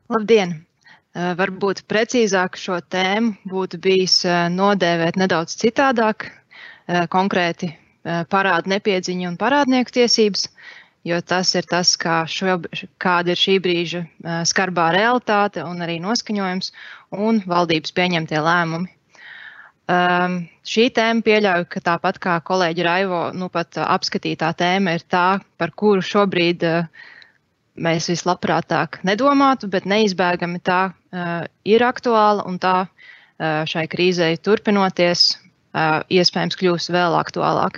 Labdien! Varbūt precīzāk šo tēmu būtu bijis nodēvēt nedaudz citādāk, konkrēti parādu nepiedziņu un parādnieku tiesības, jo tas ir tas, kāda ir šī brīža skarbā realitāte un arī noskaņojums un valdības pieņemtie lēmumi. Šī tēma pieļauju, ka tāpat kā kolēģi Raivo pat apskatītā tēma ir tā, par kuru šobrīd mēs vislabprātāk nedomātu, bet neizbēgami tā ir aktuāla un tā šai krīzei turpinoties iespējams kļūs vēl aktuālāk.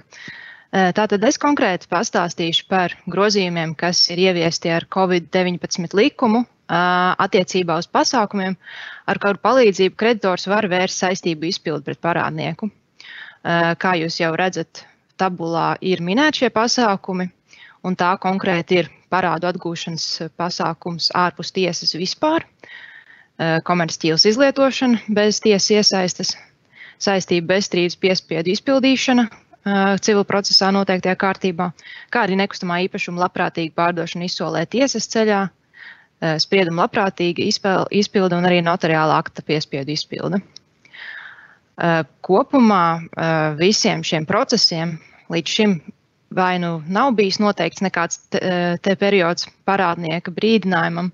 Tātad es konkrēti pastāstīšu par grozījumiem, kas ir ieviesti ar Covid-19 likumu attiecībā uz pasākumiem, ar kuru palīdzību kreditors var vērst saistību izpildi pret parādnieku. Kā jūs jau redzat, tabulā ir minēti šie pasākumi, un tā konkrēti ir parādu atgūšanas pasākums ārpus tiesas vispār, komercķīlas izlietošana bez tiesas iesaistes, saistība bezstrīdus piespiedu izpildīšana civil procesā noteiktajā kārtībā, kā arī nekustamā īpašuma labprātīga pārdošana izsolē tiesas ceļā, sprieduma labprātīga izpilde un arī notariāla akta piespiedu izpilde. Kopumā visiem šiem procesiem līdz šim vai nu nav bijis noteikts nekāds te periods parādnieka brīdinājumam,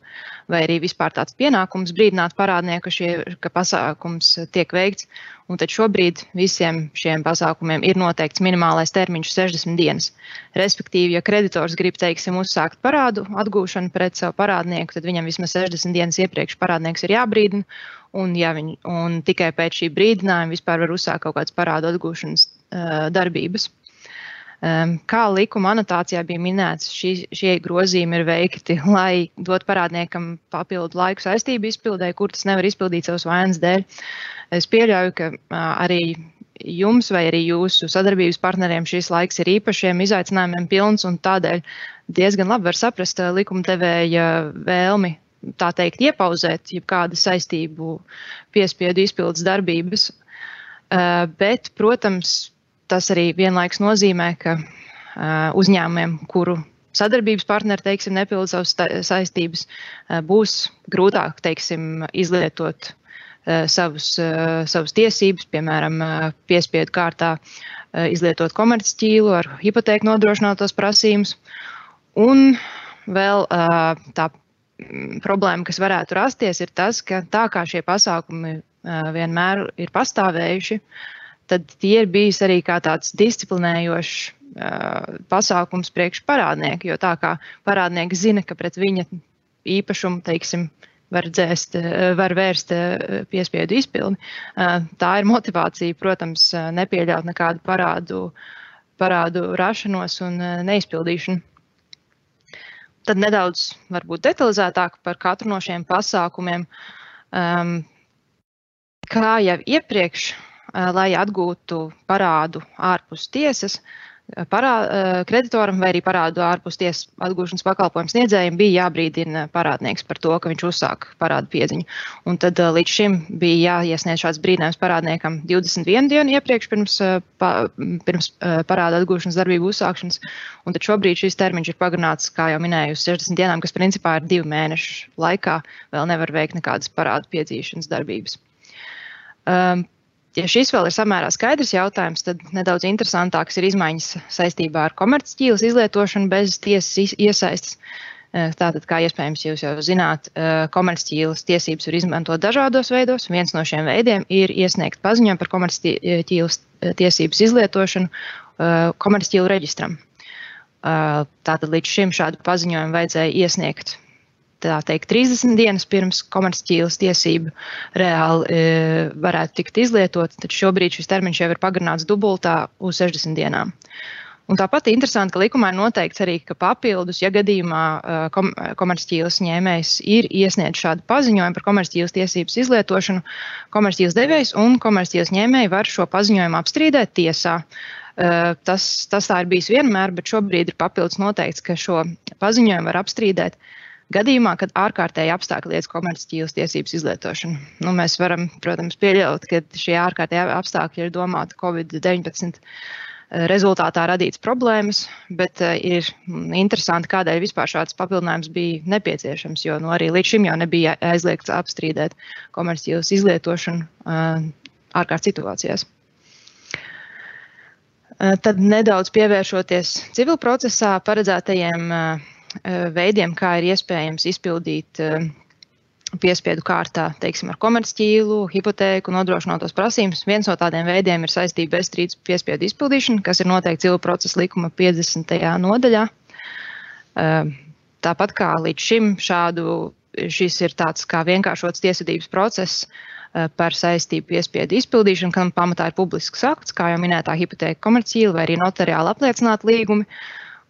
vai arī vispār tāds pienākums brīdināt parādnieku, ka pasākums tiek veikts. Un tad šobrīd visiem šiem pasākumiem ir noteikts minimālais termiņš 60 dienas. Respektīvi, ja kreditors grib, teiksim, uzsākt parādu atgūšanu pret savu parādnieku, tad viņam vismaz 60 dienas iepriekš parādnieks ir jābrīdina, un tikai pēc šī brīdinājuma vispār var uzsākt kaut kādas parādu atgūšanas darbības. Kā likuma anotācijā bija minēts, šie grozījumi ir veikti, lai dot parādniekam papildu laiku saistību izpildē, kur tas nevar izpildīt savas vainas dēļ. Es pieļauju, ka arī jums vai arī jūsu sadarbības partneriem šis laiks ir īpašiem izaicinājumiem pilns, un tādēļ diezgan labi var saprast likumdevēja vēlmi, tā teikt, iepauzēt jebkādu saistību piespiedu izpildes darbības. Bet, protams, tas arī vienlaiks nozīmē, ka uzņēmumiem, kuru sadarbības partneri, teiksim, nepilda savas saistības, būs grūtāk, teiksim, izlietot savas tiesības, piemēram, piespiedu kārtā izlietot komercķīlu ar hipotēku nodrošinātos prasījumus. Un vēl tā problēma, kas varētu rasties, ir tas, ka tā kā šie pasākumi vienmēr ir pastāvējuši, tad tie ir bijis arī kā tāds disciplinējošs pasākums priekš parādnieku, jo tā kā parādnieks zina, ka pret viņa īpašumu, teiksim, var vērst piespiedu izpildi. Tā ir motivācija, protams, nepieļaut nekādu parādu rašanos un neizpildīšanu. Tad nedaudz varbūt detalizētāk par katru no šiem pasākumiem. Kā jau iepriekš, lai atgūtu parādu ārpus tiesas, kreditoram vai arī parādu ārpus tiesas atgūšanas pakalpojumu sniedzējiem bija jābrīdina parādnieks par to, ka viņš uzsāk parādu piedziņu. Un tad līdz šim bija jāiesniedz šāds brīdinājums parādniekam 21 dienu iepriekš pirms parāda atgūšanas darbību uzsākšanas. Un tad šobrīd šis termiņš ir pagarināts, kā jau minēju, uz 60 dienām, kas principā ir 2 mēnešu laikā vēl nevar veikt nekādas parādu piedzīšanas darbības. Ja šis vēl ir samērā skaidrs jautājums, tad nedaudz interesantāks ir izmaiņas saistībā ar komercķīlas izlietošanu bez tiesas iesaistes. Tātad, kā iespējams jūs jau zināt, komercķīlas tiesības var izmantot dažādos veidos. Viens no šiem veidiem ir iesniegt paziņojumu par komercķīlas tiesības izlietošanu komercķīlu reģistram. Tātad līdz šim šādu paziņojumu vajadzēja iesniegt, tā teikt, 30 dienas pirms komercķīlas tiesību reāli varētu tikt izlietot, tad šobrīd šis termiņš jau ir pagarināts dubultā uz 60 dienām. Un tāpat interesanti, ka likumā ir noteikts arī, ka papildus, ja gadījumā komercķīlas ņēmējs ir iesniedz šādu paziņojumu par komercķīlas tiesības izlietošanu, komercķīlas devējs un komercķīlas ņēmēji var šo paziņojumu apstrīdēt tiesā. Tas tā ir bijis vienmēr, bet šobrīd ir papildus noteikts, ka šo paziņojumu var apstrīdēt gadījumā, kad ārkārtēji apstākļi liedz komercķīlas tiesības izlietošanu. Mēs varam, protams, pieļaut, ka šie ārkārtēji apstākļi ir domāti Covid-19 rezultātā radīts problēmas, bet ir interesanti, kādēļ vispār šāds papildinājums bija nepieciešams, jo arī līdz šim jau nebija aizliegts apstrīdēt komercķīlas izlietošanu ārkārtas situācijās. Tad nedaudz pievēršoties civil procesā paredzētajiem veidiem, kā ir iespējams izpildīt piespiedu kārtā, teiksim, ar komercķīlu, hipotēku, nodrošinotos prasības. Viens no tādiem veidiem ir saistība bezstrīdus piespiedu izpildīšana, kas ir noteikti civil procesa likuma 50. nodaļā. Tāpat kā līdz šim šis ir tāds kā vienkāršots tiesvedības process par saistību piespiedu izpildīšanu, kam pamatā ir publisks akts, kā jau minētā hipotēka komercķīla vai arī notariāli apliecināti līgumi.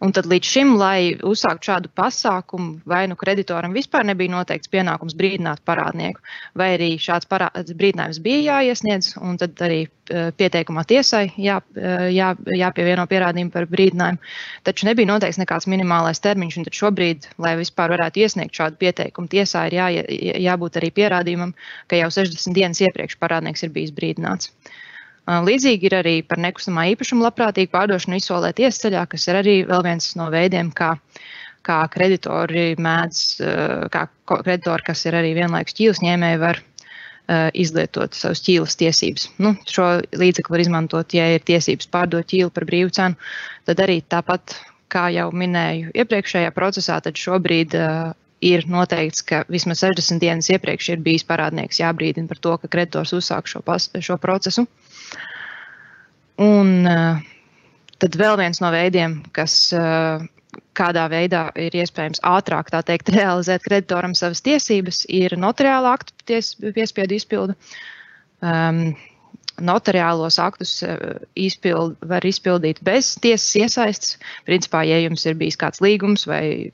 Un tad līdz šim, lai uzsāktu šādu pasākumu, vai kreditoram vispār nebija noteikts pienākums brīdināt parādnieku, vai arī šāds brīdinājums bija jāiesniedz, un tad arī pieteikumā tiesai jāpievieno pierādījumi par brīdinājumu. Taču nebija noteikts nekāds minimālais termiņš, un tad šobrīd, lai vispār varētu iesniegt šādu pieteikumu, tiesā ir jābūt arī pierādījumam, ka jau 60 dienas iepriekš parādnieks ir bijis brīdināts. Līdzīgi ir arī par nekustamā īpašuma labprātīgu pārdošanu izsolē tiesceļā, kas ir arī vēl viens no veidiem, kā kreditori kas ir arī vienlaikus ķīlas ņēmēji, var izlietot savas ķīlas tiesības. Šo līdzekli var izmantot, ja ir tiesības pārdot ķīlu par brīvu cenu, tad arī tāpat, kā jau minēju iepriekšējā procesā, tad šobrīd ir noteikts, ka vismaz 60 dienas iepriekš ir bijis parādnieks jābrīdina par to, ka kreditors uzsāk šo procesu. Un tad vēl viens no veidiem, kas kādā veidā ir iespējams ātrāk, tā teikt, realizēt kreditoram savas tiesības, ir notariāla aktu piespiedu izpilde. Notariālos aktus var izpildīt bez tiesas iesaistes. Principā, ja jums ir bijis kāds līgums vai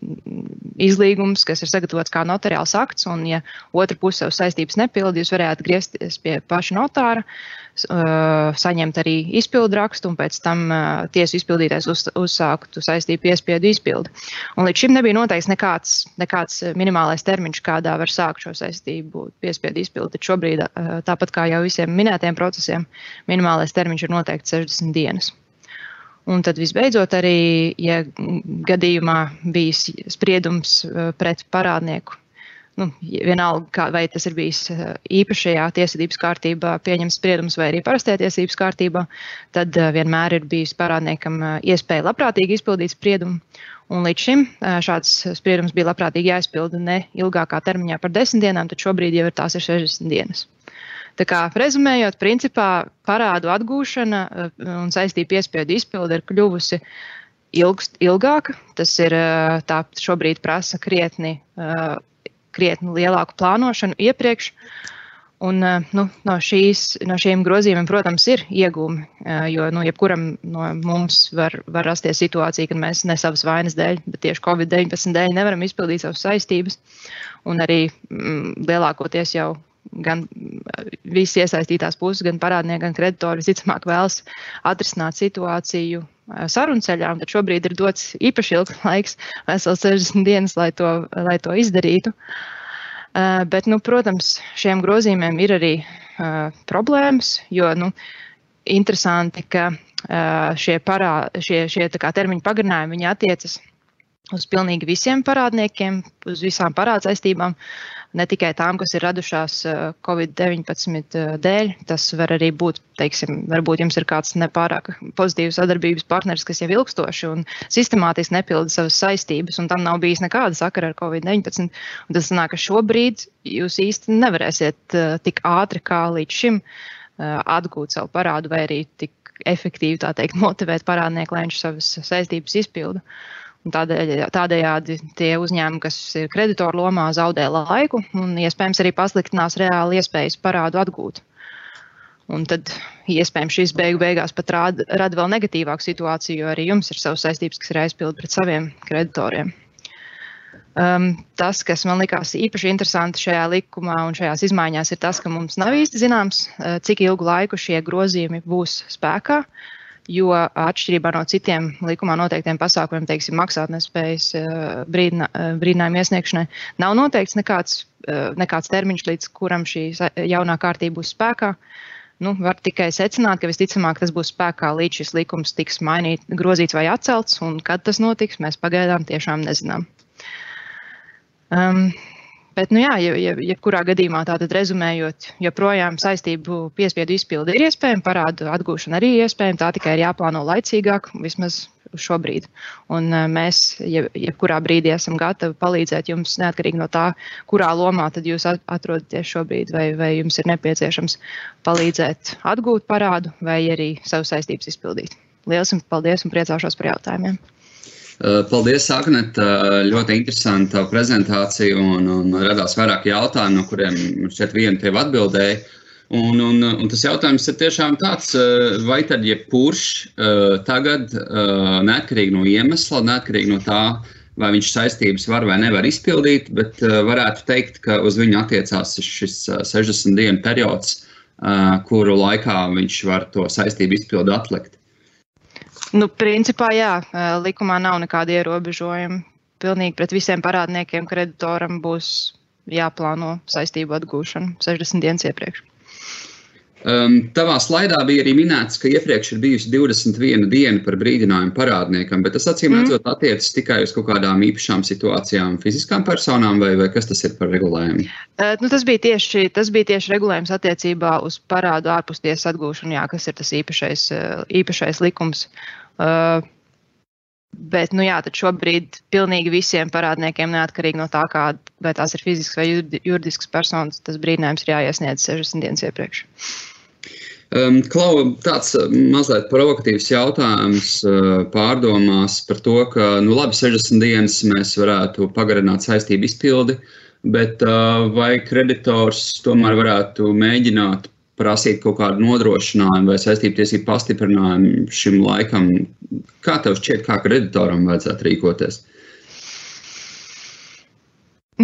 izlīgums, kas ir sagatavots kā notariāls akts, un ja otra puse savas saistības nepilda, jūs varētu griezties pie paša notāra, saņemt arī izpildu rakstu, un pēc tam tiesu izpildītājs uzsāktu saistību piespiedu izpildi. Un līdz šim nebija noteikts nekāds minimālais termiņš, kādā var sākt šo saistību piespiedu izpildi. Tad šobrīd, tāpat kā jau visiem minētiem procesiem, minimālais termiņš ir noteikti 60 dienas. Un tad visbeidzot arī, ja gadījumā bijis spriedums pret parādnieku, vienalga, vai tas ir bijis īpašajā tiesvedības kārtībā pieņemts spriedums vai arī parastajā tiesvedības kārtībā, tad vienmēr ir bijis parādniekam iespēja labprātīgi izpildīt spriedumu. Un līdz šim šāds spriedums bija labprātīgi jāizpilda ne ilgākā termiņā par 10 dienām, tad šobrīd jau tās ir 60 dienas. Tā kā rezumējot, principā parādu atgūšana un saistību piespiedu izpilde ir kļuvusi ilgāka. Tas ir tā šobrīd prasa krietni lielāku plānošanu iepriekš. Un no šiem grozījumiem, protams, ir iegūmi, jo jebkuram no mums var rasties situācija, kad mēs ne savas vainas dēļ, bet tieši Covid-19 dēļ nevaram izpildīt savas saistības. Un arī lielākoties jau gan visi iesaistītās puses, gan parādnieki, gan kreditori visticamāk vēlas atrisināt situāciju sarunceļā, un tad šobrīd ir dots īpaši ilgs laiks, vesels 60 dienas, lai to izdarītu. Bet, protams, šiem grozījumiem ir arī problēmas, jo, interesanti, ka šie tā kā termiņu pagarinājumi, viņi attiecas uz pilnīgi visiem parādniekiem, uz visām parādsaistībām, ne tikai tām, kas ir radušās Covid-19 dēļ. Tas var arī būt, varbūt jums ir kāds nepārāk pozitīvs sadarbības partneris, kas jau ilgstoši un sistemātiski nepilda savas saistības, un tam nav bijis nekāda sakara ar Covid-19. Un tas sanāk, ka šobrīd jūs īsti nevarēsiet tik ātri kā līdz šim atgūt savu parādu vai arī tik efektīvi, tā teikt, motivēt parādnieku, lai viņš savas saistības izpilda. Un tādējādi tie uzņēmumi, kas ir kreditoru lomā, zaudē laiku un iespējams arī pasliktinās reāli iespējas parādu atgūt. Un tad iespējams šis beigās pat rada vēl negatīvāku situāciju, jo arī jums ir savas saistības, kas ir jāizpild pret saviem kreditoriem. Tas, kas man likās īpaši interesanti šajā likumā un šajās izmaiņās, ir tas, ka mums nav īsti zināms, cik ilgu laiku šie grozījumi būs spēkā. Jo atšķirībā no citiem likumā noteiktiem pasākumiem, teiksim, maksātnespējas brīdinājuma iesniegšanai, nav noteikts nekāds termiņš, līdz kuram šī jaunā kārtība būs spēkā. var tikai secināt, ka visticamāk tas būs spēkā līdz šis likums tiks grozīts vai atcelts, un kad tas notiks, mēs pagaidām tiešām nezinām. Bet, jebkurā gadījumā tātad rezumējot, joprojām saistību piespiedu izpildi ir iespējama, parādu atgūšana arī iespējama, tā tikai ir jāplāno laicīgāk, vismaz šobrīd. Un mēs jebkurā brīdī esam gatavi palīdzēt jums, neatkarīgi no tā, kurā lomā tad jūs atrodaties šobrīd, vai jums ir nepieciešams palīdzēt atgūt parādu, vai arī savu saistības izpildīt. Lielas jums paldies un priecāšos par jautājumiem. Paldies, Agnet, ļoti interesanta prezentācija un radās vairāk jautājumu, no kuriem šķiet vienu tev atbildēja. Un tas jautājums ir tiešām tāds, vai tad jebkurš tagad, neatkarīgi no iemesla, neatkarīgi no tā, vai viņš saistības var vai nevar izpildīt, bet varētu teikt, ka uz viņu attiecās šis 60 dienu periods, kuru laikā viņš var to saistību izpildi atlikt. Principā, jā, likumā nav nekāda ierobežojuma. Pilnīgi pret visiem parādniekiem kreditoram būs jāplāno saistību atgūšana 60 dienas iepriekš. Tavā slaidā bija arī minēts, ka iepriekš ir bijusi 21 diena par brīdinājumu parādniekam, bet tas acīm redzot attiecas tikai uz kaut kādām īpašām situācijām fiziskām personām, vai kas tas ir par regulējumu? Tas bija tieši regulējums attiecībā uz parādu ārpustiesas atgūšanu, jā, kas ir tas īpašais likums. Bet, tad šobrīd pilnīgi visiem parādniekiem, neatkarīgi no tā, vai tās ir fizisks vai juridisks personas, tas brīdinājums ir jāiesniedz 60 dienas iepriekš. Klau, tāds mazliet provokatīvs jautājums pārdomās par to, ka, labi, 60 dienas mēs varētu pagarināt saistību izpildi, bet vai kreditors tomēr varētu mēģināt prasīt kaut kādu nodrošinājumu vai saistību tiesību pastiprinājumu šim laikam? Kā tev šķiet, kā kreditoram vajadzētu rīkoties?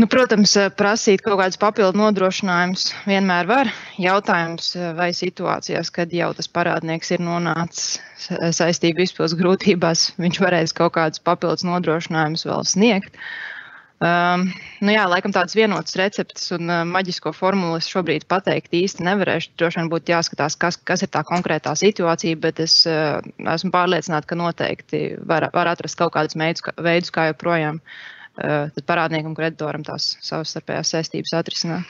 Protams, prasīt kaut kādus papildu nodrošinājumus vienmēr var. Jautājums, vai situācijās, kad jau tas parādnieks ir nonācis saistību izpildes grūtībās, viņš varēs kaut kādus papildus nodrošinājumus vēl sniegt. Laikam tādas vienotas receptes un maģisko formulu es šobrīd pateikt īsti nevarēšu. Droši vien būtu jāskatās, kas ir tā konkrētā situācija, bet es esmu pārliecināta, ka noteikti var atrast kaut kādus veidus, kā joprojām tad parādniekam, kreditoram tās savstarpējās saistības atrisināt.